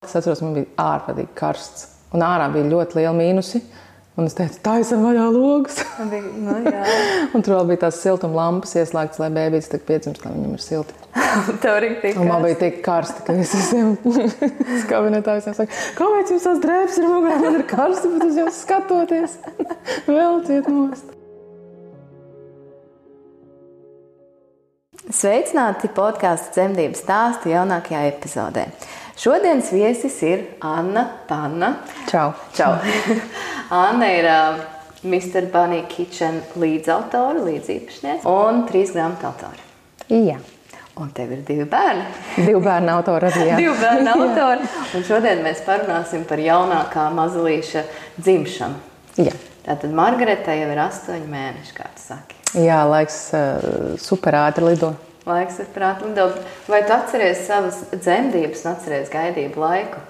Es atceros, man bija ārprātīgi karsts. Un ārā bija ļoti liela mīnusi. Un es teicu, taisam vaļā logus. Un tur vēl bija tās siltuma lampas ieslēgtas, lai bēbītis tik piedzimst, lai viņam ir silti. Tev arī tik karsti. Un man bija tik karsti, ka es visiem kabinetā visiem saku, kāpēc jums tās drēbes ir mugurā, man ir karsti, bet uz jums skatoties. Vēl ciet nost. Sveicināti podkāstu Dzemdību stāstu jaunākajā epizodē. Šodienas viesis ir Anna Panna. Čau. Čau. Anna ir Mr. Bunny Kitchen līdzautore, līdzīpašniece un 3 grāmatu autore. Jā. Un tev ir 2 bērni. 2 bērnu autori arī, jā. 2 bērnu autori. Un šodien mēs parunāsim par jaunākā mazulīša dzimšanu. Jā. Tātad Margareta jau ir 8 mēneši, kā tu saki. Jā, laiks super ātri lido. Laiks ir prāt lido. Vai tu atceries savas dzemdības un atceries gaidību laiku?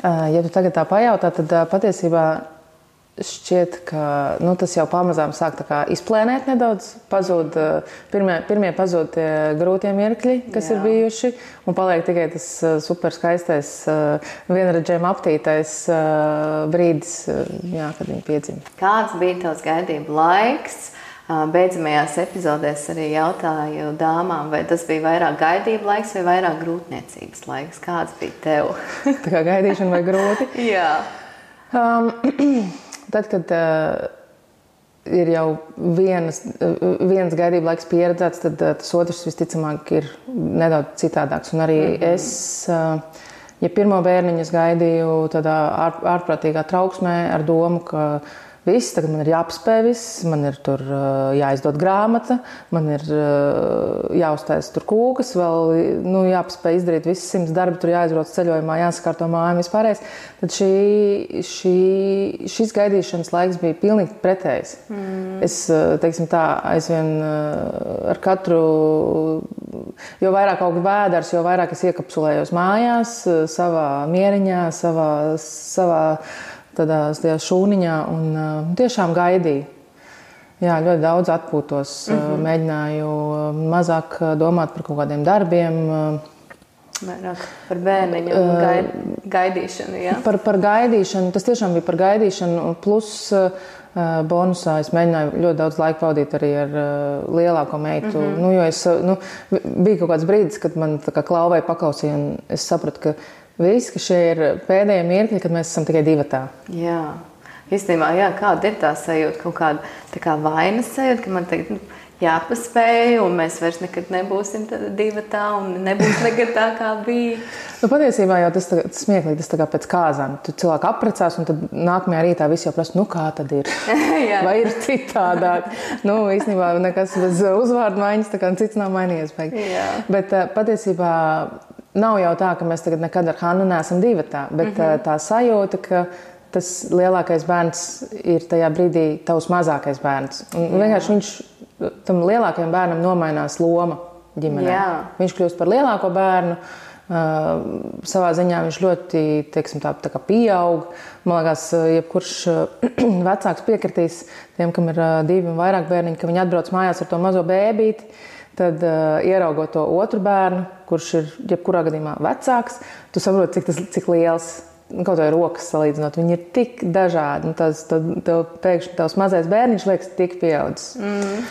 Ja tu tagad tā pajautā, tad patiesībā šķiet, ka tas jau pamazām sāk tā kā izplēnēt nedaudz. Pazūd, pirmie pazūd tie grūtie mirkļi, kas ir bijuši, un paliek tikai tas super skaistais, vienredzējuma aptītais brīdis, kad viņi piedzima. Kāds bija tavs gaidību laiks? Beidzamajās epizodēs arī jautāju dāmām, vai tas bija vairāk gaidību laiks vai vairāk grūtniecības laiks. Kāds bija tev? Tā kā gaidīšana vai grūti? Jā. Tad, kad ir jau viens gaidību laiks pieredzēts, tad tas otrs visticamāk ir nedaudz citādāks. Un arī es, ja pirmo bērniņu es gaidīju tādā ārprātīgā trauksmē ar domu, ka viss, tagad man ir jāapspēj viss, man ir tur jāizdod grāmata, man ir jāuztais tur kūkas, vēl jāapspēj izdarīt visas 100 darbi, tur jāizbrauc ceļojumā, jāsakārto māju vispārējais. Tad šis gaidīšanas laiks bija pilnīgi pretējs. Es, teiksim tā, aizvien ar katru, jo vairāk aug vēders, jo vairāk es iekapsulējos mājās, savā mieriņā, savā tādā šūniņā un tiešām gaidīju. Jā, ļoti daudz atpūtos, mēģināju mazāk domāt par kaut kādiem darbiem. Vairāk par bērniņu un gaidīšanu, jā? Par gaidīšanu, tas tiešām bija par gaidīšanu, plus bonusā es mēģināju ļoti daudz laika pavadīt arī ar lielāko meitu. Jo bija kaut kāds brīdis, kad man tā kā klauvēja paklausīja un es sapratu, ka viss, ka šie ir pēdējie mirkļi, kad mēs esam tikai divatā. Jā. Īstenībā, kāda ir tā sajūta, kaut kāda tā kā vainas sajūta, ka man tagad jāpaspēj un mēs vairs nekad nebūsim divatā un nebūs nekad tā, kā bija. Patiesībā jau tas smieklīgi, tas tā kā pēc kāzām. Tu cilvēku apprecās un tad nākamajā rītā visi jau prasa, kā tad ir? Vai ir citādāk? Īstenībā nekas bez uzvārdu maiņas, tā kā cits nav mainījies. Bet patiesībā nav jau tā, ka mēs tagad nekad ar Hannu neesam divatā, bet tā sajūta, ka tas lielākais bērns ir tajā brīdī tavs mazākais bērns. Un vienkārši viņš tam lielākajam bērnam nomainās loma ģimenē. Jā. Viņš kļūst par lielāko bērnu, savā ziņā viņš ļoti, teiksim, tā kā pieaug. Man liekas, jebkurš vecāks piekritīs tiem, kam ir 2 un vairāk bērniņi, ka viņi atbrauc mājās ar to mazo bēbīti. Tad, ieraugot to otru bērnu, kurš ir jebkurā gadījumā vecāks, tu saproti, cik liels, kaut vai rokas salīdzinot, viņi ir tik dažādi. Tev pēkšņi tavs mazais bērniņš liekas tik pieaudzis.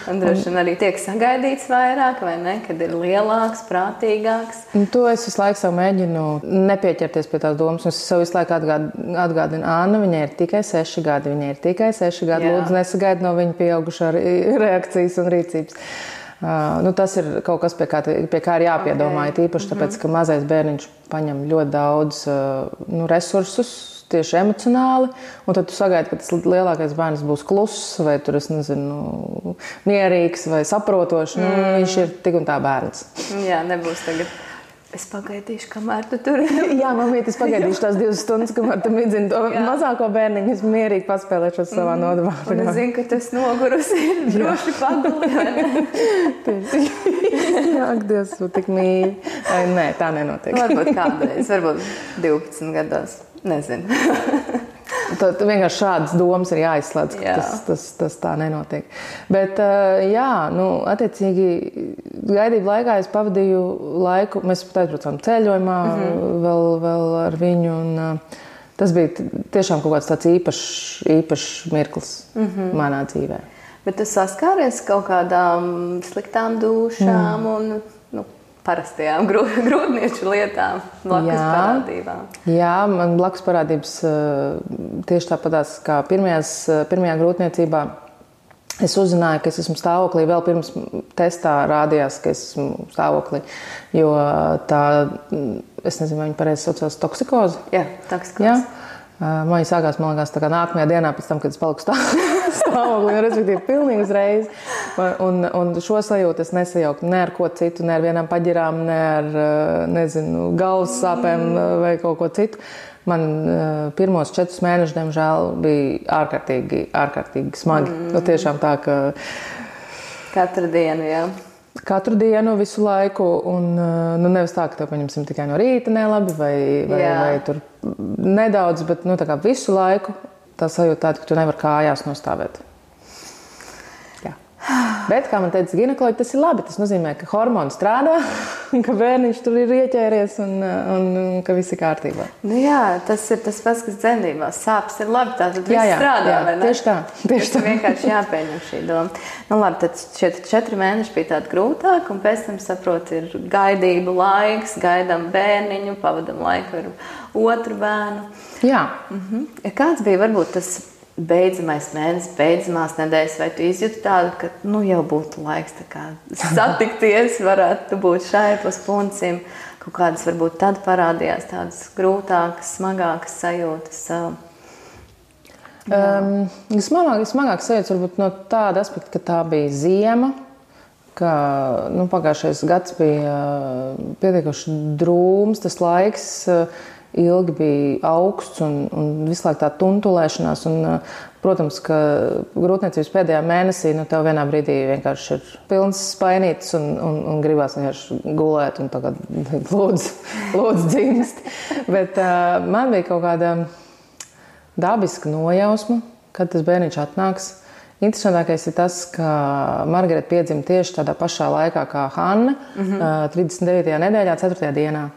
Un droši vien arī tiek sagaidīts vairāk, vai ne? Kad ir lielāks, prātīgāks. To es visu laiku sev mēģinu nepieķerties pie tās domas. Es sev visu laiku atgādinu, Anna, viņai ir tikai 6 gadi. Viņai ir tikai 6 gadi. Lūdzu, nesagaidi no viņa pieaugušā reakcijas un rīcības. Tas ir kaut kas, pie kā ir jāpiedomā, tīpaši tāpēc, ka mazais bērniņš paņem ļoti daudz resursus, tieši emocionāli, un tad tu sagaidi, ka tas lielākais bērns būs kluss, vai tur, es nezinu, mierīgs vai saprotošs, viņš ir tik un tā bērns. Jā, nebūs tagad. Es pagaidīšu, kamēr tu tur. Jā, mamīt, es pagaidīšu tās 2 stundas, kamēr tu mēģini to mazāko bērniņu, es mierīgi paspēlēšos savā nodabā. Un es zinu, ka tu esi nogurusi, droši paguli. Jā, Dievs, tu tik mīļi. Nē, tā nenotiek. Varbūt kādreiz, varbūt 12 gados, nezinu. Tad vienkārši šādas domas ir jāizslēdz, ka tas tā nenotiek. Bet, attiecīgi, gaidību laikā es pavadīju laiku, mēs pat aizbraucām ceļojumā vēl ar viņu, un tas bija tiešām kaut kāds tāds īpašs mirklis manā dzīvē. Bet tu saskāries kaut kādām sliktām dūšām un parastajām grūtnieču lietām, blakus parādībām? Jā, man blakus parādības tieši tāpatās kā pirmajā grūtniecībā. Es uzzināju, ka es esmu stāvoklī, vēl pirms testā rādījās, ka es esmu stāvoklī, jo tā, es nezinu, vai viņi pareizi saucās toksikoze. Jā, toksikoze. Jā. Man viņa sākās, man liekas, tā kā nākamajā dienā pēc tam, kad es paliku stāvoklī, respektīvi pilnīgi uzreiz. Un šo sajūtu es nesajauku ne ar ko citu, ne ar vienām paģirām, ne ar, galvas sāpēm vai kaut ko citu. Man pirmos 4 mēnešus, diemžēl, bija ārkārtīgi smagi. Tiešām tā, ka... Katru dienu, jā. Katru dienu, visu laiku, un nevis tā, ka tev paņemsim tikai no rīta nelabi vai tur nedaudz, bet tā kā visu laiku tā sajūta tāda, ka tu nevar kājās nostāvēt. Jā. Bet, kā man teica ginekoloģi, tas ir labi. Tas nozīmē, ka hormoni strādā, ka bērniņš tur ir ieķēries un ka viss ir kārtībā. Jā, tas ir tas pats, kas dzemdībās. Sāpes ir labi, tātad viss strādā, vai ne? Tieši tā. Vienkārši jāpieņem šī doma. Labi, tad šie 4 mēneši bija tādi grūtāki, un pēc tam, saprotu, ir gaidību laiks, gaidām bērniņu, pavadam laiku ar otru bērnu. Jā. Kāds bija varbūt tas beidzamais mēnesis, beidzamās nedēļas, vai tu izjūti tādu, ka jau būtu laiks tā kā satikties, varētu būt šaipos puncim, kaut kādas varbūt tad parādījās tādas grūtākas, smagākas sajūtas? Smagākas sajūtas varbūt no tāda aspekta, ka tā bija ziema, ka pagājušais gads bija pietiekoši drūms, tas laiks ilgi bija augsts un visu laiku tā tuntulēšanās. Protams, ka grūtniecības pēdējā mēnesī tev vienā brīdī vienkārši ir pilns spainītis un gribās vienkārši gulēt un tagad lūdzu dzimst. Bet man bija kaut kāda dabiska nojausma, kad tas bērniņš atnāks. Interesantākais ir tas, ka Margarita piedzima tieši tādā pašā laikā kā Hanna, 39. nedēļā, 4. dienā.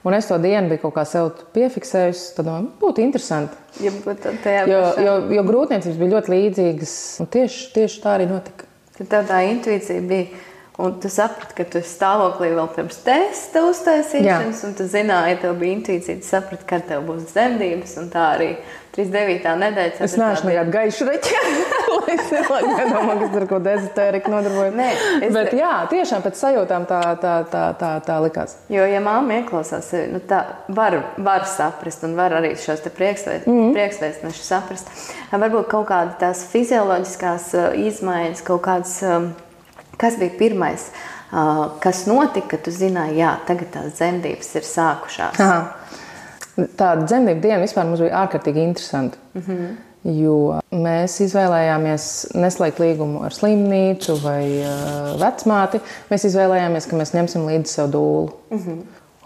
Un es to dienu biju kaut kā sev piefiksējusi, tad būtu interesanti. Jo grūtniecības bija ļoti līdzīgas, un tieši tā arī notika. Tad tev tā intuīcija bija, un tu saprati, ka tu esi stāvoklī vēl pirms testa uztaisīšanas, un tu zināji, tev bija intuīcija, tu saprati, kad tev būs dzemdības, un tā arī 39. nedēļa. Es neesmu nekādu gaišu reķi, lai es nedomā, ka es ar ko dezotēriku nodarbojos. Bet jā, tiešām pēc sajūtām tā likās. Jo, ja māma ieklausās sevi, tā var saprast un var arī šos te priekšvēstnešus saprast. Varbūt kaut kāda tās fizioloģiskās izmaiņas, kaut kādas, kas bija pirmais, kas notika, ka tu zināji, jā, tagad tās dzemdības ir sākušās. Aha. Tāda dzemdību diena vispār mums bija ārkārtīgi interesanti, jo mēs izvēlējāmies neslēgt līgumu ar slimnīcu vai vecmāti. Mēs izvēlējāmies, ka mēs ņemsim līdzi sev dūlu.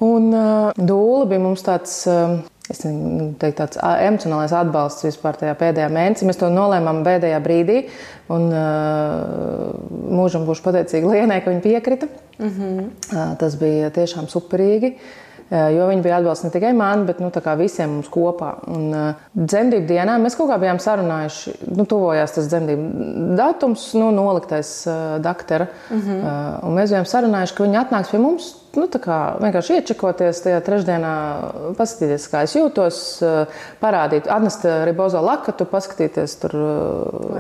Un dūla bija mums tāds, tāds emocionālais atbalsts vispār tajā pēdējā mēnesī. Mēs to nolēmām pēdējā brīdī, un mūžam būšu pateicīga Lienai, ka viņa piekrita. Tas bija tiešām superīgi. Jo viņi bija atbalsts ne tikai man, bet visiem mums kopā. Un dzemdību dienā mēs kaut kā bijām sarunājuši, tuvojās tas dzemdību datums, noliktais daktera. Un mēs bijām sarunājuši, ka viņi atnāks pie mums, vienkārši iečekoties tajā trešdienā, paskatīties, kā es jūtos, parādīt, atnest ribozo lakatu, paskatīties tur,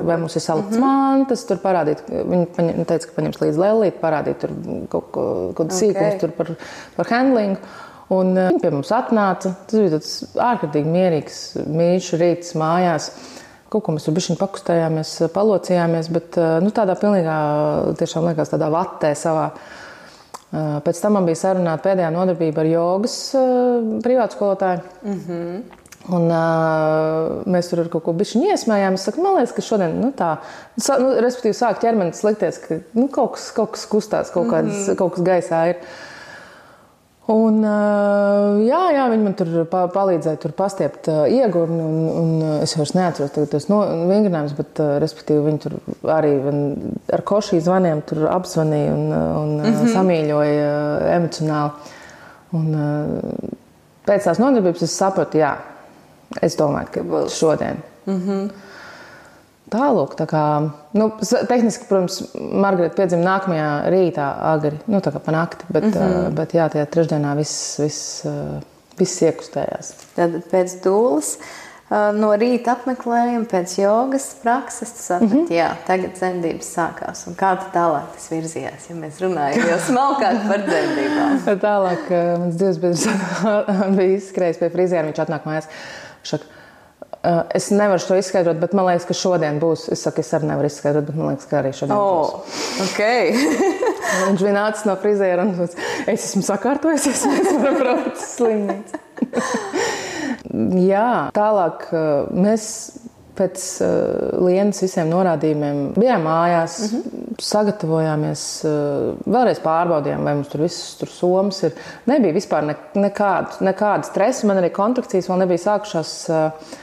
vai mums ir salikts mantas, tur parādīt, viņi teica, ka paņems līdz lellīt, parādīt tur kaut sīkums tur par handlingu. Un viņi pie mums atnāca. Tas bija tāds ārkārtīgi mierīgs, mīļš rīts mājās. Kaut ko mēs tur bišķiņ pakustējāmies, palocījāmies, bet tādā pilnīgā, tiešām liekas, tādā vatē savā. Pēc tam man bija sarunāta pēdējā nodarbība ar jogas privātskolotāju. Un mēs tur ar kaut ko bišķiņ iesmējām. Es saku, man liekas, ka šodien, respektīvi sāk ķermenis likties, ka kaut kas kustās, kaut kas gaisā ir. Un, jā, viņi man tur palīdzēja tur pastiept iegurni, un es vairs neatceros tos vingrinājumus, bet, respektīvi, viņi tur arī ar košī zvaniem tur apzvanīja un samīļoja emocionāli. Un pēc tās nodarbības es sapratu, jā, es domāju, ka šodien. Tālūk, tā kā, tehniski, protams, Margarita piedzima nākamajā rītā agri, tā kā pa nakti, bet jā, tajā trešdienā viss iekustējās. Tad pēc dūles, no rīta apmeklējuma, pēc jogas prakses, tu saprati, jā, tagad dzemdības sākās. Un kā tālāk tas virzījās, ja mēs runājam jau smalkāk par dzemdībām? Tālāk, mans dzīvesbiedrs bija izskrējis pie friziera, viņš atnāk mājās, šaka, es nevaru to izskaidrot, bet man liekas, ka šodien būs. Es saku, es arī nevaru izskaidrot, bet man liekas, ka arī šodien būs. Okay. Viņš bija nācis no friziera un es esmu sakārtojusies, mēs varam braukt uz slimnīcu. Jā, tālāk mēs pēc Lienas visiem norādījumiem bijām mājās, sagatavojāmies, vēlreiz pārbaudījām, vai mums tur viss tur somas ir. Nebija vispār nekāda stresa, man arī kontrakcijas vēl nebija sākušās.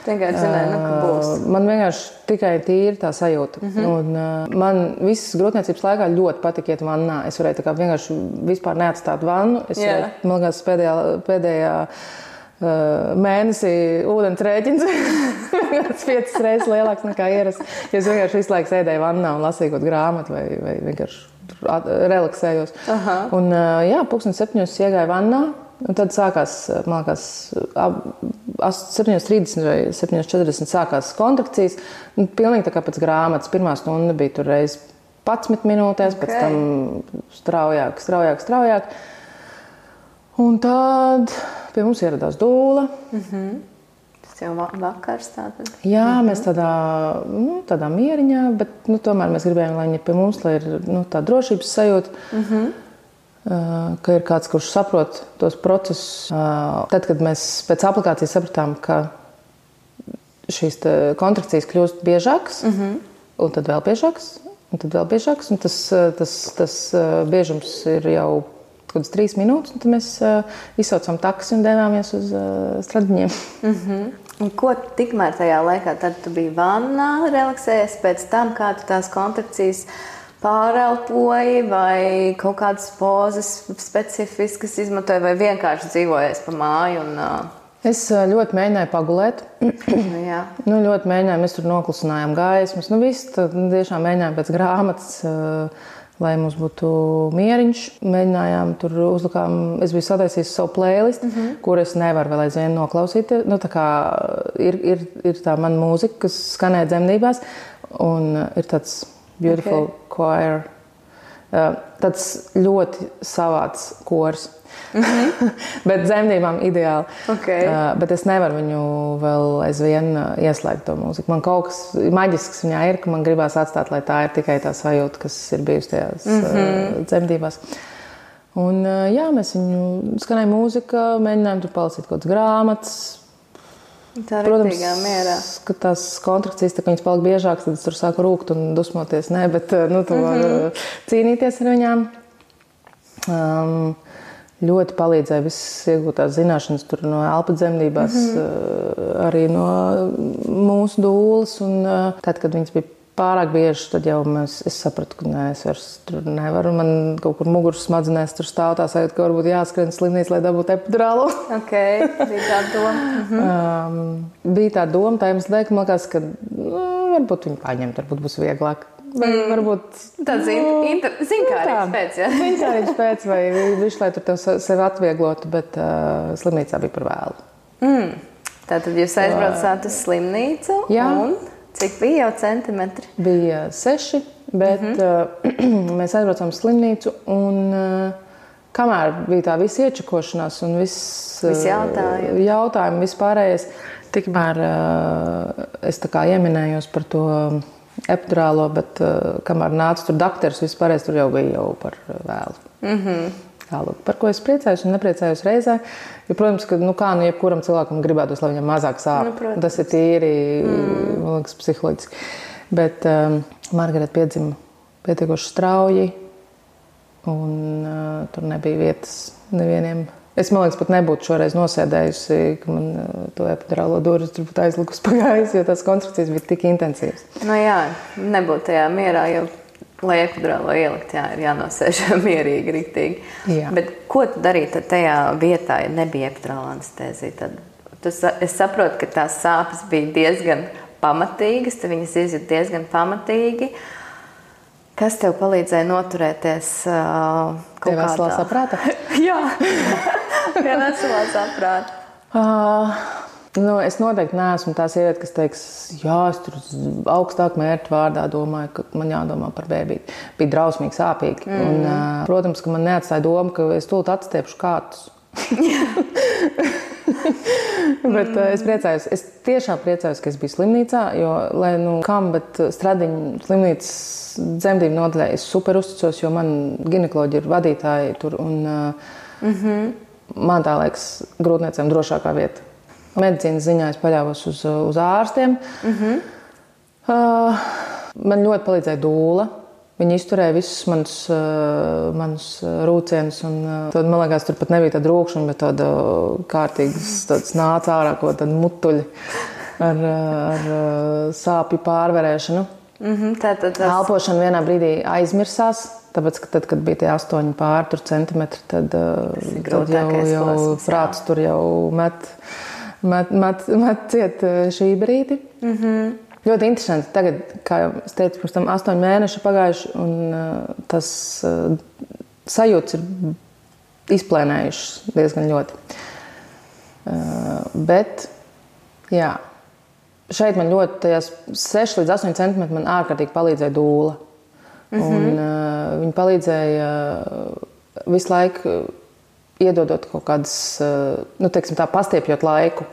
Vienkārši zināju, ka būs. Man vienkārši tikai tīri tā sajūta. Un man visas grūtniecības laikā ļoti patika iet vannā. Es varēju tā kā vienkārši vispār neatstāt vannu. Es varēju, man liekas, pēdējā mēnesī ūdens rēķins 5 reizes lielāks nekā ierasts. Es vienkārši visu laiku sēdēju vannā un lasīju kaut grāmatu vai vienkārši relaksējos. Un jā, 7:00 iegāju vannā un tad sākās, man liekas, 7:30 vai 7:40 sākās kontrakcijas. Pilnīgi tā kā pēc grāmatas. Pirmā stunda bija tur reiz 11 minūtēs, pēc tam straujāk. Un tad pie mums ieradās dūle. Tas jau vakars tātad? Jā, mēs tādā mieriņā, bet tomēr mēs gribējām, lai viņi pie mums, lai ir tā drošības sajūta, ka ir kāds, kurš saprot tos procesus. Tad, kad mēs pēc aplikācijas sapratām, ka šīs kontrakcijas kļūst biežākas, un tad vēl biežākas, un tas biežums ir jau kaut kādas 3 minūtes, un tad mēs izsaucām taksi un devāmies uz Stradiņiem. Un ko tikmēr tajā laikā, tad tu biji vannā, relaksējies, pēc tam kā tu tās kontrakcijas pārelpoji vai kaut kādas pozas specifiskas izmantoji vai vienkārši dzīvojies pa māju? Es ļoti mēģināju pagulēt. Jā. Ļoti mēģināju, mēs tur noklusinājām gaismas. Viss tiešām mēģinājām pēc grāmatas, lai mums būtu mieriņš. Mēģinājām tur uzlikām, es biju sataisījis savu playlistu, kur es nevaru vēl aizvien noklausīt. Tā kā ir tā mana mūzika, kas skanē dzemdībās, un ir tāds beautiful choir. Tāds ļoti savāds kors. Bet dzemdībām ideāli. Bet es nevaru viņu vēl aizvien ieslēgt to mūziku. Man kaut kas maģisks viņā ir, ka man gribās atstāt, lai tā ir tikai tā sajūta, kas ir bijusi tajās dzemdībās. Un jā, mēs viņu skanēja mūzika, mēģinājām tur palasīt kaut kādas grāmatas. Tā riktīgā mierā. Ka tās kontrakcijas, tā kā viņas palika biežākas, tad es tur sāku rūkt un dusmoties. Nē, bet tu var cīnīties ar viņām. Ļoti palīdzēja visas iegūtās zināšanas tur no elpa dzemdībās, arī no mūsu dūles. Un tad, kad viņas bija pārāk bieži, tad jau es sapratu, ka nē, es vairs tur nevaru. Man kaut kur muguras smadzenēs tur stāv tā sajūta, ka varbūt jāskrien slimnīcu, lai dabūtu epidurālu. Bija tā doma. Bija tā doma, tā iemesla dēļ, ka man liekas, ka varbūt viņu paņemt, varbūt būs vieglāk. Varbūt tāds zinkārīgs pēc, ja? Zinkārīgs pēc, vai viņš, lai tur tev sevi atvieglotu, bet slimnīcā bija par vēlu. Tātad jūs aizbraucāt uz slimnīcu, un cik bija jau centimetri? Bija 6, bet mēs aizbraucām uz slimnīcu, un kamēr bija tā visa iečakošanās un viss jautājumi, vispārējais, tikmēr es tā kā ieminējos par to epidurālo, bet kamēr nāca tur dakteris, vispārējais tur jau bija jau par vēlu. Tālāk, par ko es priecājos un nepriecājos reizē, jo, protams, ka, jebkuram cilvēkam gribētos, lai viņam mazāk sāp. Tas ir tīri, man liekas, psiholoģiski. Bet Margarita piedzima pietiekoši strauji, un tur nebija vietas nevieniem Es, man liekas, pat nebūtu šoreiz nosēdējusi, ka man to epidurālo durvis tur būtu aizlikus pagājis, jo tās konstrukcijas bija tik intensīvas. Nu jā, nebūtu tajā mierā, jo, lai epidurālo ielikt, jā, ir jānosēž mierīgi, riktīgi. Jā. Bet ko tu darīji tad tajā vietā, ja nebija epidurāla anestēzija? Tad es saprotu, ka tās sāpes bija diezgan pamatīgas, tu viņas izjūt diezgan pamatīgi. Kas tev palīdzēja noturēties kaut kādā? Veselā saprāta? Jā, pie veselā saprāta. Es noteikti neesmu tā sieviete, kas teiks, jā, es tur augstāk mērķu vārdā domāju, ka man jādomā par bēbīti. Bija drausmīgi sāpīgi. Un, protams, ka man neatstāja doma, ka es tūlīt atstiepšu kātus. Bet es priecājos, es tiešām priecājos, ka es biju slimnīcā, jo, lai bet Stradiņu slimnīcas dzemdību nodaļā es super uzticos, jo man ginekoloģi ir vadītāji tur, un man tā liekas grūtniecēm drošākā vieta. Medicīnas ziņā es paļāvos uz ārstiem. Man ļoti palīdzēja dūla. Viņi izturēja visus manus rūcienus. Tad, man liekas, tur pat nebija tāda rūkšana, bet tāda kārtīgas nāca ārā, ko tāda mutuļi ar sāpju pārvarēšanu. Elpošana vienā brīdī aizmirsās, tāpēc, ka tad, kad bija tie 8 centimetri, tad jau prāts tur jau met ciet šī brīdi. Ļoti interesanti. Tagad, kā jau es teicu, pirms tam 8 mēneši pagājuši, un tas sajūts ir izplēnējušas diezgan ļoti. Bet, jā, šeit man ļoti, tajās 6 līdz 8 centimetri man ārkārtīgi palīdzēja dūla. Un viņi palīdzēja visu laiku iedodot kaut kādas, teiksim tā, pastiepjot laiku.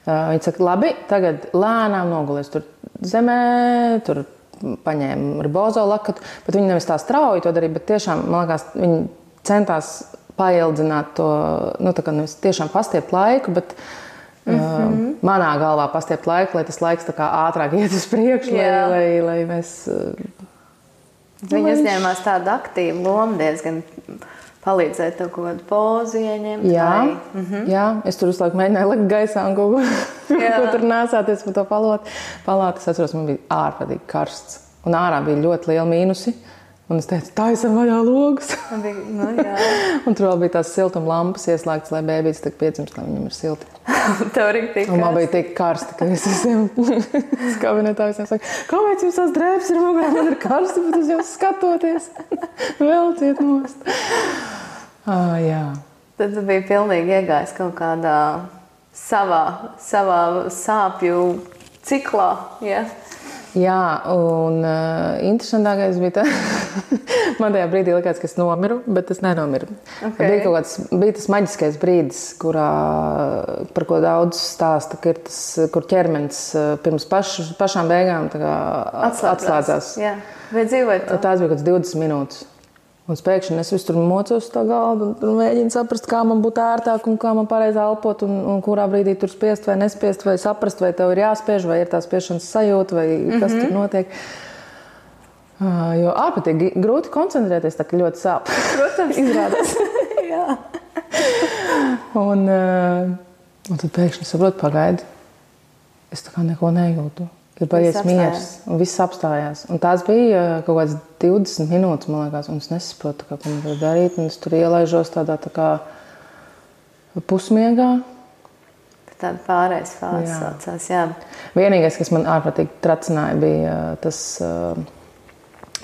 Viņi saka, labi, tagad lēnām nogulies tur zemē, tur paņēma ribozo lakatu, bet viņi nevis tā strauji to darīja, bet tiešām, man liekas, viņi centās paildzināt to, tā kā nevis tiešām pastiept laiku, bet manā galvā pastiept laiku, lai tas laiks tā kā ātrāk iet uz priekšu, lai mēs... Viņi uzņēmās tādu aktīvu lomu diezgan... Palīdzēja tev kaut kādu pozu ieņemt? Jā, es tur visu laiku mēģināju likt gaisā un kaut ko tur nēsāties pa to palātu. Es atceros, man bija ārprātīgi karsts. Un ārā bija ļoti liela mīnusi. Un es teicu, taisam vaļā logus. Un tur vēl bija tās siltuma lampas ieslēgtas, lai bēbītis tak piedzimst, lai viņam ir silti. Tev arī tik karsti. Un man bija tik karsti, ka es visiem kabinetā visiem saku, kāpēc jums tās drēbes ir mugurā, man ir karsti, bet uz jūs skatoties. Vēl ciet nost. Jā. Tad tu biji pilnīgi iegājis kaut kādā savā sāpju ciklā, ja? Jā, un interesantākais bija man tajā brīdī likās, ka es nomiru, bet es nenomiru. Bija tas maģiskais brīdis, par ko daudz stāsta, ka ir tas, kur ķermenis pirms pašām beigām atslēdzās. Jā. Vai dzīvojat to? Tās bija kāds 20 minūtes. Un pēkšņi es visu tur mocos uz tā galdu un mēģinu saprast, kā man būtu ērtāk un kā man pareizi elpot un kurā brīdī tur spiest vai nespiest, vai saprast, vai tev ir jāspiež, vai ir tā spiešanas sajūta, vai kas tur notiek. Jo ārprātīgi grūti koncentrēties, tā ka ļoti sāp. Protams. Izrādās. Jā. Un tad pēkšņi saprotu, pagaidi. Es tā kā neko nejūtu. Ir paies miers, un viss apstājās. Un tās bija kaut kāds 20 minūtes, man liekas, un es nesaprotu, ko man var darīt. Un es tur ielaižos tādā tā kā pusmiegā. Tāda pārējais fāze saucās, jā. Vienīgais, kas man ārprātīgi tracināja, bija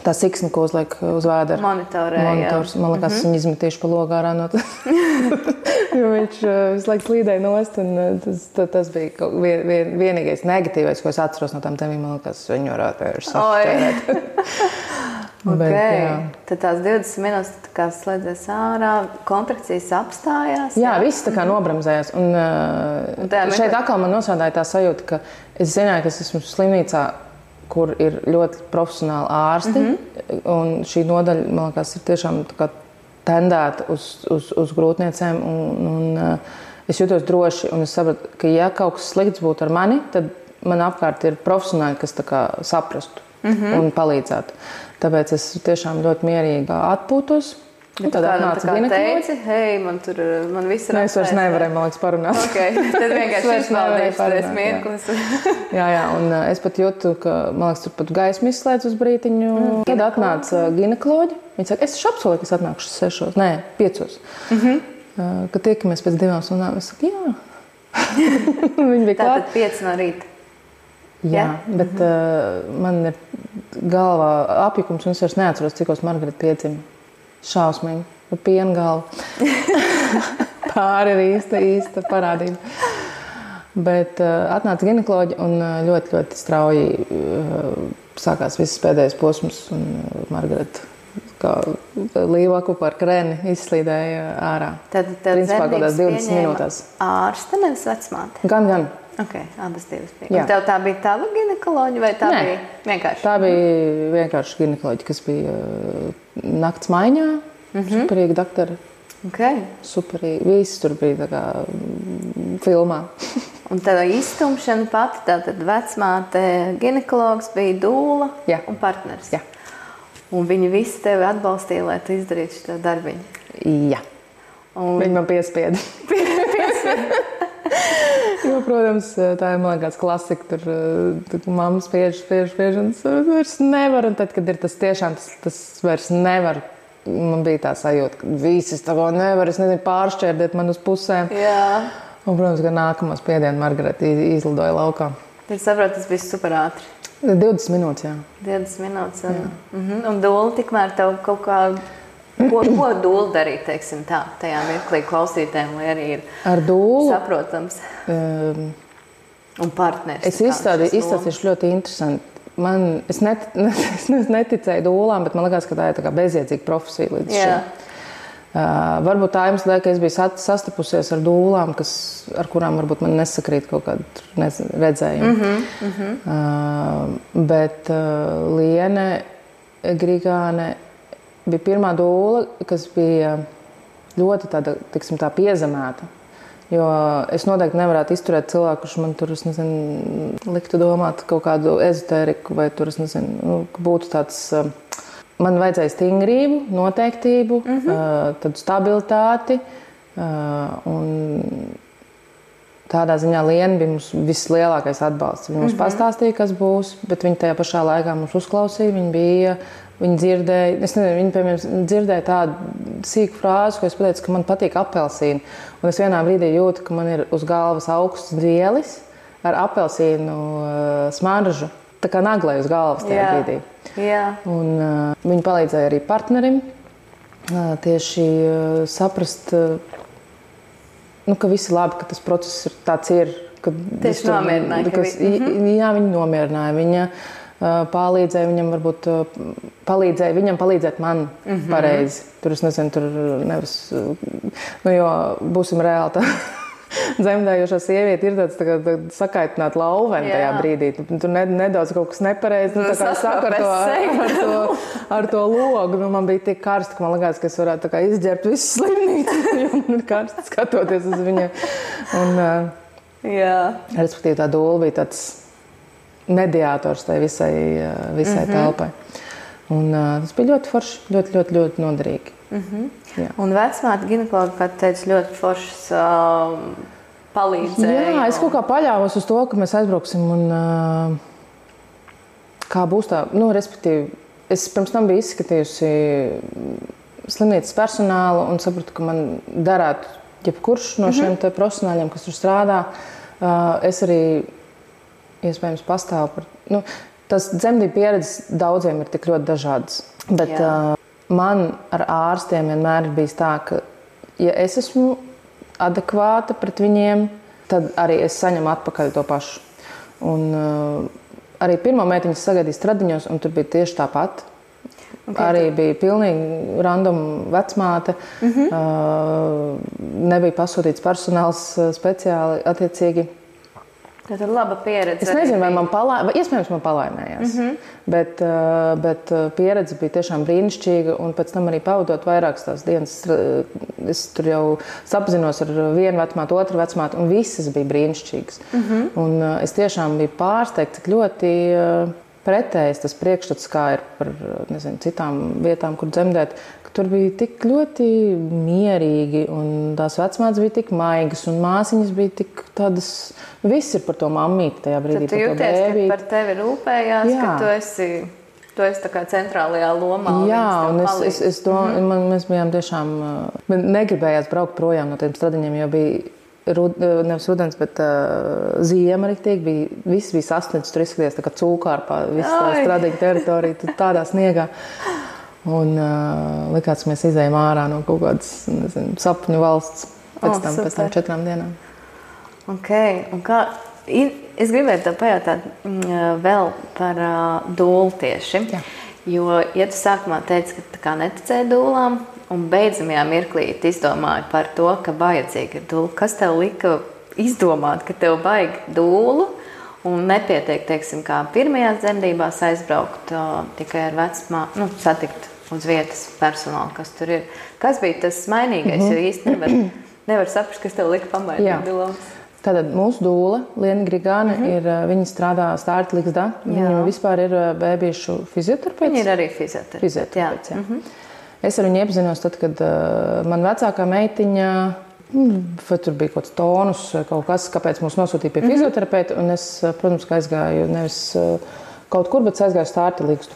tā siksna, ko uzliek uz vēdera. Monitors. Man liekas, viņi izmetīšu pa logu ārā no tā. Jo viņš visu laiku slīdēja nost, un tas bija vienīgais negatīvais, ko es atceros no tām tēmīm. Man liekas, viņi varētu sašķērēt. Tad tās 20 minūtes tā kā slēdzies ārā, kontrakcijas apstājās. Jā, viss tā kā nobremzējās. Un šeit atkal man nosādāja tā sajūta, ka es zināju, ka es esmu slimnīcā, kur ir ļoti profesionāli ārsti. Un šī nodaļa, man liekas, ir tiešām tā kā tendēta uz grūtniecēm. Un es jūtos droši, un es sapratu, ka ja kaut kas slikts būtu ar mani, tad man apkārt ir profesionāļi, kas tā kā saprastu un palīdzētu. Tāpēc es tiešām ļoti mierīgi atpūtos. Un tad atnāca ginekoloģi. Hei, man viss ir es vairs nevarēju, man liekas, parunāt. Okay. Tad vienkārši izvaldīšu tais mirklis. jā, un es pat jūtu, ka, man liekas, tur pat gaismu izslēdz uz brītiņu. Tad atnāca ginekoloģi. Viņi saka, es apsolīju, ka es atnākšu 6, nē, 5. Kad tiekamies pēc 2 stundām, es saku, jā. Viņi bija klāt. Tātad 5 no rīta. Jā, bet man ir galvā apjukums, un es vairs neatceros, cikos Margarita piedzima. Šausmīgi, ar pienu galvu. Pāri ir īsta parādība. Bet atnāca ginekoloģi un ļoti, ļoti strauji sākās visas pēdējais posms. Un Margarita kā līvaku par krēni izslīdēja ārā. Tad principā kādās 20 minūtēs. Ārste, nevis vecmāte? Gan. Okay, abas divas bija. Un tev tā bija tava ginekoloģi vai tā bija vienkārši? Tā bija vienkārši ginekoloģi, kas bija nakts maiņā. Superīgi doktori. Okay. Superīgi. Visi tur bija tā kā filmā. Un tev izstumšana pati, tātad vecmāte, ginekologs bija dūla un partners. Jā. Un viņi visi tevi atbalstīja, lai tu izdarītu šo darbiņu. Jā. Viņi man piespieda. Jo, protams, tā ir, man liekas, klasika. Tur mamma spiež, un es vairs nevaru. Un tad, kad ir tas tiešām, tas vairs nevar. Man bija tā sajūta, ka visi es tā kā nevar, es nezinu, pāršķērdēt man uz pusēm. Jā. Un, protams, ka nākamo spiedienu Margarita izlidoja laukā. Tad saprotu, tas bija super ātri. 20 minūtes, jā. 20 minūtes. Un dūla tikmēr tev kaut kā... Ko dūla darīt, teiksim tā, tajā mirklī klausītēm, lai arī ir ar dūlu saprotams un partners? Es izstāstīšu ļoti interesanti. Es neticēju dūlām, bet man liekas, ka tā ir tā kā bezjēdzīga profesija līdz šim. Varbūt tā iemesla dēļ, ka es biju sastapusies ar dūlām, ar kurām varbūt man nesakrīt kaut kādu redzējumu. Bet Liene Grigāne bija pirmā dūla, kas bija ļoti tāda, tiksim, tā piezemēta. Jo es noteikti nevarētu izturēt cilvēku, kurš man tur, es nezinu, liktu domāt kaut kādu ezotēriku, vai tur, es nezinu, būtu tāds... Man vajadzēja stingrību, noteiktību, tādu stabilitāti. Un tādā ziņā Liena bija mums vislielākais atbalsts. Viņa mums pastāstīja, kas būs, bet viņa tajā pašā laikā mums uzklausīja. Viņa dzirdēja, es nezinu, viņa, piemēram, dzirdēja tādu sīku frāzi, ko es pateicu, ka man patīk apelsīni. Un es vienā brīdī jūtu, ka man ir uz galvas augsts vielis ar apelsīnu smaržu. Tā kā naglai uz galvas tajā brīdī. Jā. Un viņa palīdzēja arī partnerim tieši saprast, ka viss ir labi, ka tas process ir tāds ir. Tieši nomierināja. Jā, viņa nomierināja. Viņa palīdzēja viņam palīdzēt man pareizi. Tur es nezinu, tur nevis, jo būsim reāli tā. Zemdējošā sieviete ir tāds sakaitināta lauveni tajā brīdī. Tur nedaudz kaut kas nepareizi. Tā kā saku ar to logu. Man bija tik karsti, ka man likās, ka es varētu izģērbt visu slimnīcu. Jo man ir karsti skatoties uz viņu. Respektīvi tā dūla bija tāds mediātors tai visai telpai. Un tas bija ļoti forši, ļoti, ļoti, ļoti noderīgi. Un vecmāte ginekologa, kā teica, ļoti foršas palīdzēja. Jā, es kaut kā paļāvos uz to, ka mēs aizbrauksim un kā būs tā, respektīvi, es pirms tam biju izskatījusi slimnīcas personālu un sapratu, ka man darētu jebkurš no šiem te profesionāļiem, kas tur strādā. Es arī iespējams pastāvu par... Tas dzemdību pieredzes daudziem ir tik ļoti dažādas, bet... Man ar ārstiem vienmēr ir bijis tā, ka, ja es esmu adekvāta pret viņiem, tad arī es saņemu atpakaļ to pašu. Un arī pirmo meitiņu sagaidīju Stradiņos, un tur bija tieši tāpat. Arī bija pilnīgi random vecmāte. Nebija pasūtīts personāls speciāli attiecīgi. Tā ir laba pieredze. Es nezinu, vai iespējams man palaimējās, bet pieredze bija tiešām brīnišķīga, un pēc tam arī pavadot vairākas tās dienas, es tur jau sapazinos ar vienu vecmātu, otru vecmātu, un visas bija brīnišķīgas. Un es tiešām biju pārsteigta, cik ļoti pretējs tas priekšstats, kā ir par citām vietām, kur dzemdēt, ka tur bija tik ļoti mierīgi un tās vecmātes bija tik maigas un māsiņas bija tik tādas, viss ir par to mammīti tajā brīdī. Tad tu jūties, ka par tevi rūpējās, Jā. ka tu esi tā kā centrālajā lomā. Jā, un es mēs bijām tiešām, negribējās braukt projām no tiem stradiņiem, jo bija nevis rudens, bet ziema riktīgi. Viss bija sasniegts, tur izskaties tā kā cūkārpā, viss tā stradiņa teritorija, tādā sniegā. Un likās, mēs izējām ārā no kaut kādas, sapņu valsts pēc tam 4 dienām. Ok, un kā, es gribētu tev pajautāt vēl par dūlu tieši. Jā. Jo, ja tu sākumā teici, ka tā kā neticēji dūlām, un beidzamajā mirklī izdomāji par to, ka vajadzīga ir dūla. Kas tev lika izdomāt, ka tev vajag dūlu un nepietiek, teiksim, kā pirmajās dzemdībās aizbraukt tikai ar vecmāmu, satikt uz vietas personālu, kas tur ir. Kas bija tas mainīgais, jo īsti nevar saprast, kas tev lika pamainīt dūlās? Tātad mūsu dūla, Liena Grigāne, viņa strādā Stārta Ligzdā. Viņa vispār ir bēbīšu fizioterapeits. Viņa ir arī fizioterapeits, jā. Es ar viņu iepazinos tad, kad man vecākā meitiņa, vai tur bija kaut kāds tonus, kaut kas, kāpēc mūs nosūtīja pie fizioterapeita, un es, protams, ka aizgāju nevis kaut kur, bet aizgāju Stārta Ligzdu.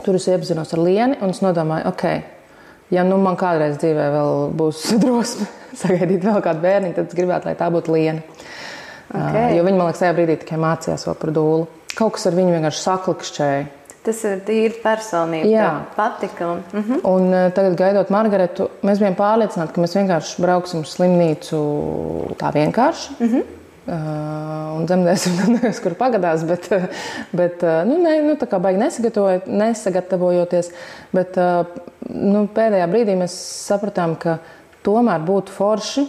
Tur es iepazinos ar Lieni, un es nodomāju, ja man kādreiz dzīvē vēl būs drosme sagaidīt vēl kādu bērniņu, tad es gribētu, lai tā būtu Liena. Jo viņa, man liekas, tajā brīdī tikai mācījās vēl par dūlu. Kaut kas ar viņu vienkārši saklikšķēja. Tas ir tīri personība, patika. Un tagad, gaidot Margaretu, mēs bijām pārliecināti, ka mēs vienkārši brauksim uz slimnīcu tā vienkārši. Un dzemdēsim, kur pagadās, bet tā kā baigi nesagatavojoties. Bet pēdējā brīdī mēs sapratām, ka tomēr būtu forši,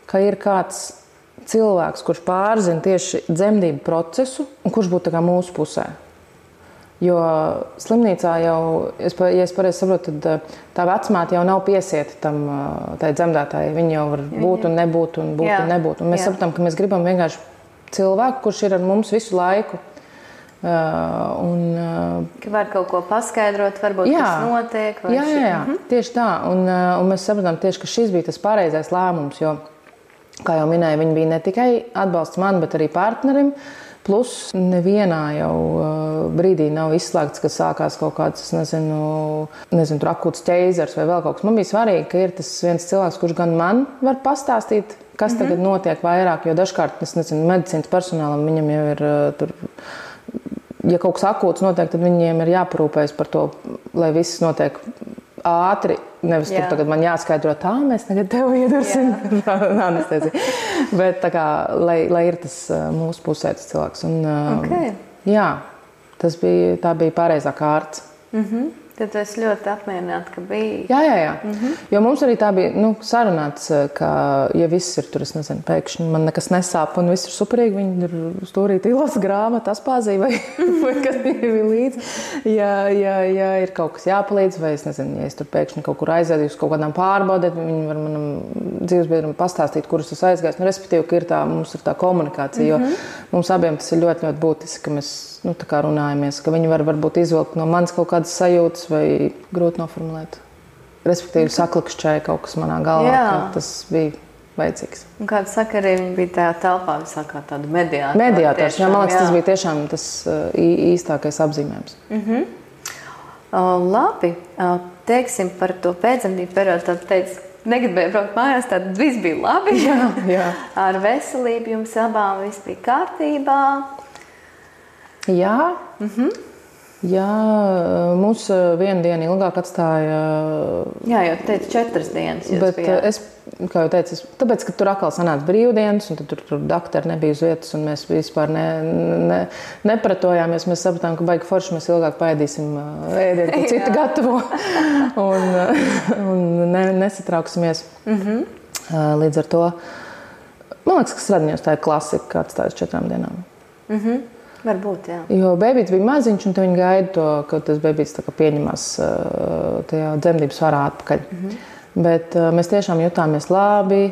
ka ir kāds cilvēks, kurš pārzina tieši dzemdību procesu un kurš būtu tā kā mūsu pusē. Jo slimnīcā jau, ja es pareizi saprotu, tad tā vecmāte jau nav piesieta tai dzemdētājai. Viņa jau var būt un nebūt un būt un nebūt. Un mēs sapratām, ka mēs gribam vienkārši cilvēku, kurš ir ar mums visu laiku. Ka var kaut ko paskaidrot, varbūt kas notiek. Jā, tieši tā. Un mēs sapratām tieši, ka šis bija tas pareizais lēmums, jo, kā jau minēju, viņi bija ne tikai atbalsts man, bet arī partnerim. Plus nevienā jau brīdī nav izslēgts, ka sākās kaut kāds, tur akūts ķeizars vai vēl kaut kas. Man bija svarīgi, ka ir tas viens cilvēks, kurš gan man var pastāstīt, kas tagad notiek vairāk, jo dažkārt, medicīnas personālam viņam jau ir tur, ja kaut kas akūts notiek, tad viņiem ir jāparūpējas par to, lai viss notiek ātri, nevis tur tagad man jāskaidro tā, mēs tagad tev iedursim anesteziju. Bet tā kā, lai ir tas mūsu pusē tas cilvēks. Un, jā, tā bija pareizā kārts. Tad es ļoti apmierināta, ka bija. Jā. Jo mums arī tā bija sarunāts, ka, ja viss ir tur, pēkšņi man nekas nesāp un viss ir superīgi, viņi tur stūrīt ilās grāmatu, aspāzī vai kas ir līdzi. Ja ir kaut kas jāpalīdz, vai ja es tur pēkšņi kaut kur aizēdu uz kaut kādām pārbaudēt, viņi var manam dzīvesbiedram pastāstīt, kurus es aizgāju. Respektīvi, ka mums ir tā komunikācija, jo mums abiem tas ir ļoti, ļoti būtiski, ka mēs tā kā runājamies, ka viņi varbūt izvilkt no manis kaut kādas sajūtas vai grūti noformulēt. Respektīvi, saklikšķēja kaut kas manā galvā, ka tas bija vajadzīgs. Un kāda sakarī viņi bija tajā telpā visā kā tādu mediātoru? Mediātors, man liekas, tas bija tiešām tas īstākais apzīmējums. Labi, teiksim par to pēcdzemdību periodu, tad teici, negribēju braukt mājās, tad viss bija labi. Jā. Ar veselību jums abām viss bija kārtībā. Jā. Jā, mūs vienu dienu ilgāk atstāja. Jā, jau teicu 4 dienas. Bet es, kā jau teicu, tāpēc, ka tur atkal sanāca brīvdienas, un tad tur doktori nebija uz vietas, un mēs vispār nepratojāmies. Mēs sapratām, ka baigi forši mēs ilgāk paēdīsim ēdienu, ko citi gatavo, un nesatrauksimies. Līdz ar to, man liekas, ka Stradiņos tā ir klasika, kā atstājas 4 dienām. Varbūt, jā. Jo bēbīts bija maziņš, un te viņi gaida to, ka tas bēbīts pieņemās tajā dzemdības svarā atpakaļ. Bet mēs tiešām jutāmies labi.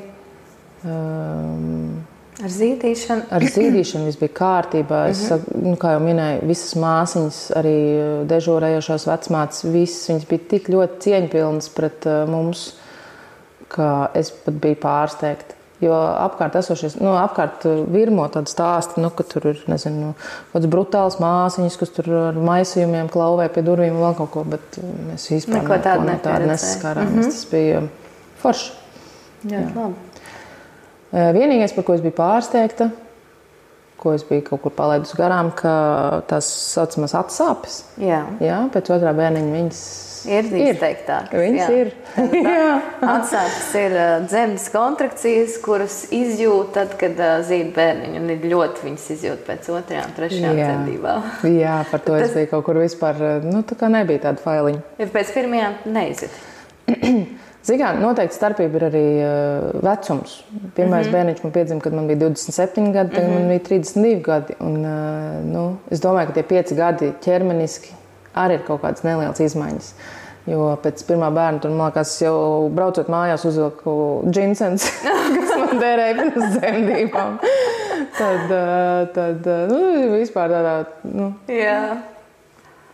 Ar zīdīšanu? Ar zīdīšanu viss bija kārtībā. Es, kā jau minēju, visas māsiņas, arī dežūrējošās vecmātes, visas viņas bija tik ļoti cieņpilnas pret mums, ka es pat biju pārsteigta. Jo apkārt esošies, apkārt virmo tādu stāstu, ka tur ir, nezinu, kāds brutāls māsiņas, kas tur ar maisījumiem klauvē pie durvīm un vēl kaut ko, bet mēs vispār neko tādu nesaskārāmies. Tas bija forši. Jā, labi. Vienīgais, par ko es biju pārsteigta, ko es biju kaut kur palaidusi garām, ka tās saucamās atsāpes. Jā, pēc otrā bērniņa viņas ir izteiktākas. Viņas ir. Atsāpes ir dzemdes kontrakcijas, kuras izjūt tad, kad zīd bērniņu, un ir ļoti viņas izjūt pēc otrajām, trešajām dzemdībām. Jā, par to es biju kaut kur vispār, tā kā nebija tāda failiņa. Ja pēc pirmajām neizjūt? Zinām, noteikti starpība ir arī vecums. Pirmais bērniņš man piedzima, kad man bija 27 gadi, tagad man bija 32 gadi. Un, es domāju, ka tie 5 gadi ķermeniski arī ir kaut kādas nelielas izmaiņas. Jo pēc pirmā bērna tur, man liekas, jau braucot mājās uzvilku džinsens, kas man derēja pirms dzemdībām. Tad vispār tādā,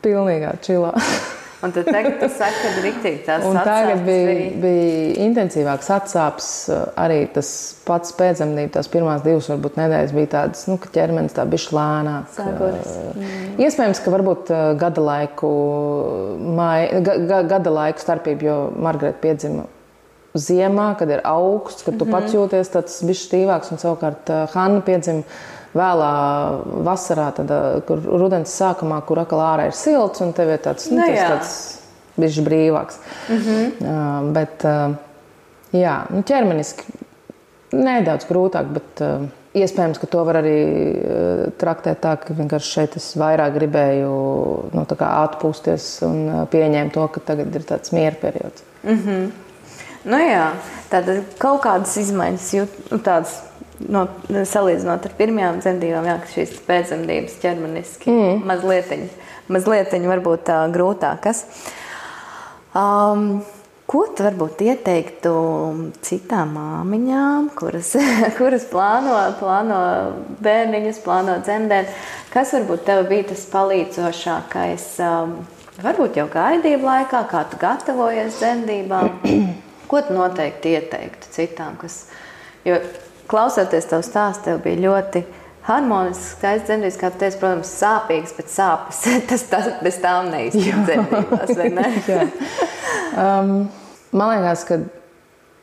pilnīgā čilā. Un tad tagad tu saki, ka riktīgi tās un atsāpes tagad bija intensīvāks atsāpes, arī tas pats pēcdzemdība, tās pirmās 2 varbūt nedēļas bija tādas, ka ķermenis tā bišķi lēnāk. Iespējams, ka varbūt gada laiku starpība, jo Margareta piedzima ziemā, kad ir augsts, kad tu pats jūties tāds bišķi stīvāks, un savukārt Hanna piedzima vēlā vasarā, kur rudens sākumā, kur atkal ārā ir silts, un tev ir tāds bišķi brīvāks. Bet, ķermeniski nedaudz grūtāk, bet iespējams, ka to var arī traktēt tā, ka vienkārši šeit es vairāk gribēju atpūsties un pieņēmu to, ka tagad ir tāds miera periods. Tātad kaut kādas izmaiņas tādas, salīdzinot ar pirmajām dzemdībām, ka šīs pēcdzemdības ķermeniski mazlietiņ varbūt grūtākas. Ko tu varbūt ieteiktu citām māmiņām, kuras plāno bērniņus, plāno dzemdēt? Kas varbūt tev bija tas palīdzošākais, varbūt jau gaidību laikā, kā tu gatavojies dzemdībām? Ko tu noteikti ieteiktu citām, jo klausoties tavu stāstu, tev bija ļoti harmonisks, skaists dzemdības, kā tu teici, protams, sāpīgs, bet sāpes, tas bez tām neiztiek dzemdībās, vai ne? Man liekas, ka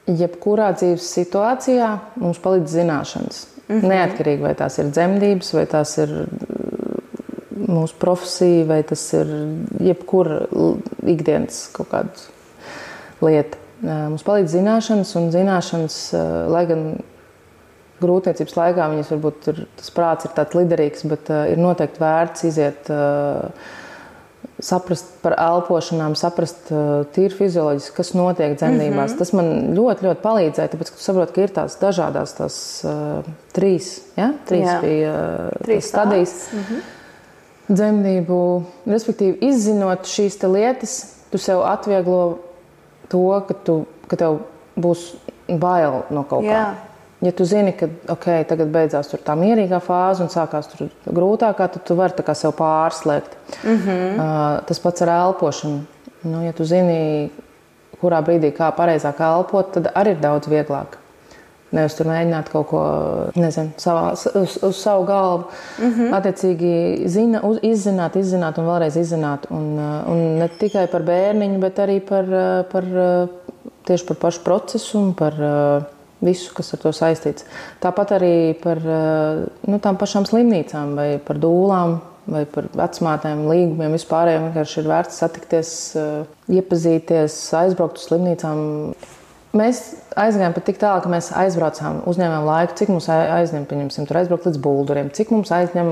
jebkurā dzīves situācijā mums palīdz zināšanas. Neatkarīgi, vai tās ir dzemdības, vai tās ir mūsu profesija, vai tas ir jebkura ikdienas kaut kāda lieta. Mums palīdz zināšanas, un zināšanas, lai gan grūtniecības laikā viņas varbūt tas prāts ir tāds liderīgs, bet ir noteikti vērts iziet, saprast par elpošanām, saprast tīri fizioloģiski, kas notiek dzemdībās. Tas man ļoti, ļoti palīdzēja, tāpēc, ka tu saproti, ka ir tās dažādās trīs bija stadijas dzemdību. Respektīvi, izzinot šīs lietas, tu sev atvieglo to, ka tev būs bail no kaut kā. Ja tu zini, ka tagad beidzās tā mierīgā fāze un sākās tur grūtākā, tad tu vari tā kā sev pārslēgt. Tas pats ar elpošanu. Ja tu zini, kurā brīdī kā pareizāk elpot, tad arī ir daudz vieglāk. Nevis tur mēģināt kaut ko, uz savu galvu. Attiecīgi izzināt un vēlreiz izzināt. Un ne tikai par bērniņu, bet arī tieši par pašu procesu un par visu, kas ar to saistīts. Tāpat arī par tām pašām slimnīcām vai par dūlām vai par vecmātēm, līgumiem, vispārējiem. Vienkārši ir vērts satikties, iepazīties, aizbraukt uz slimnīcām. Mēs aizgājām pat tik tālu, ka mēs aizbraucām, uzņēmām laiku, cik mums aizņem, pieņemsim, tur aizbraukt līdz Bulduriem, cik mums aizņem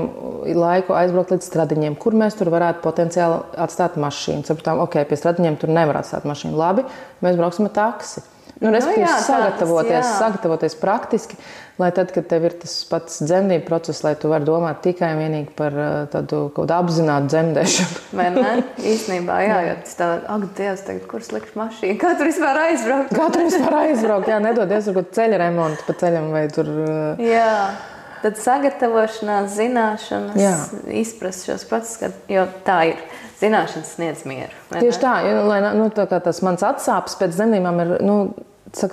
laiku aizbraukt līdz Stradiņiem, kur mēs tur varētu potenciāli atstāt mašīnu. Sapratām, pie Stradiņiem tur nevar atstāt mašīnu. Labi, mēs brauksim ar taksi. Respektīvi, sagatavoties praktiski, lai tad, kad tev ir tas pats dzemdību process, lai tu vari domāt tikai un vienīgi par tādu kaut apzinātu dzemdēšanu. Vai ne? Īstenībā, jo tas tā, Dievs, tagad, kur slikšu mašīnu? Kā tur vispār aizbraukt? Kā tur vispār aizbraukt? Nedodies, varbūt ceļa remontu pa ceļam vai tur. tad sagatavošanās, zināšanas, izprast šos procesus, jo tā ir. Zināšanas sniedz mieru. Tieši tā, tā kā tas mans atsāpes pēc dzemdībām ir,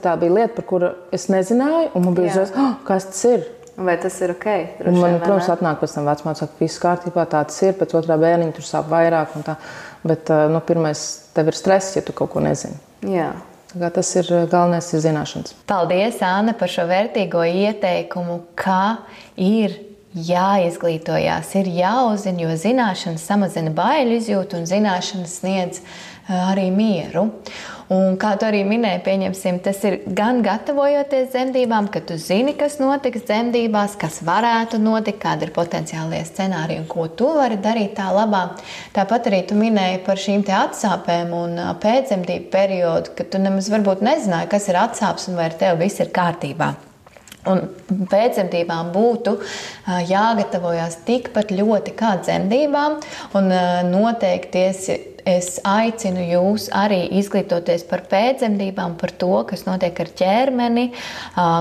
tā bija lieta, par kuru es nezināju, un man bija uzreiz, kas tas ir? Vai tas ir ok? Un man, protams, atnāk pēc tam vecmāte saka, viss kārtībā, tā tas ir, pēc otrā bērniņa tur sāp vairāk un tā. Bet, pirmais, tev ir stress, ja tu kaut ko nezini. Jā. Tā kā tas ir galvenais ir zināšanas. Paldies, Anna, par šo vērtīgo ieteikumu, kā ir jāizglītojās, ir jāuzzina, jo zināšanas samazina baiļu izjūtu un zināšanas sniedz arī mieru. Un kā tu arī minēji, pieņemsim, tas ir gan gatavojoties dzemdībām, ka tu zini, kas notiks dzemdībās, kas varētu notikt, kādi ir potenciālie scenāriji un ko tu vari darīt tā labā. Tāpat arī tu minēji par šīm te atsāpēm un pēcdzemdību periodu, ka tu nemaz varbūt nezināji, kas ir atsāpes un vai ar tevi viss ir kārtībā. Un pēcdzemdībām būtu jāgatavojās tikpat ļoti kā dzemdībām, un noteikti es aicinu jūs arī izglītoties par pēcdzemdībām, par to, kas notiek ar ķermeni,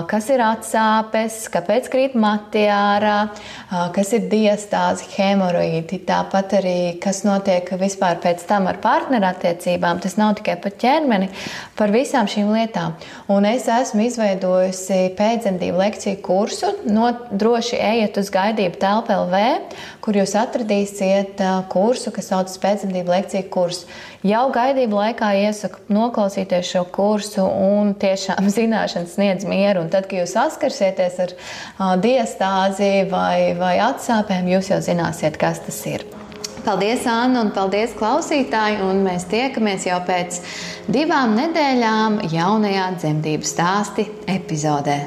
kas ir atsāpes, kāpēc krīt mati ārā, kas ir diastāzi, hemoroīdi, tāpat arī, kas notiek vispār pēc tam ar partnerattiecībām. Tas nav tikai par ķermeni, par visām šīm lietām. Un es esmu izveidojusi pēcdzemdību lekciju kursu, droši ejiet uz gaidību telpa LV, kur jūs atradīsiet kursu, kas saucas pēcdzemdību lekciju kursu. Jau gaidību laikā iesaku noklausīties šo kursu un tiešām zināšanas sniedz mieru. Un tad, kad jūs saskarsieties ar diastāzi vai atsāpēm, jūs jau zināsiet, kas tas ir. Paldies, Anna, un paldies, klausītāji, un mēs tiekamies jau pēc 2 nedēļām jaunajā dzemdību stāsti epizodē.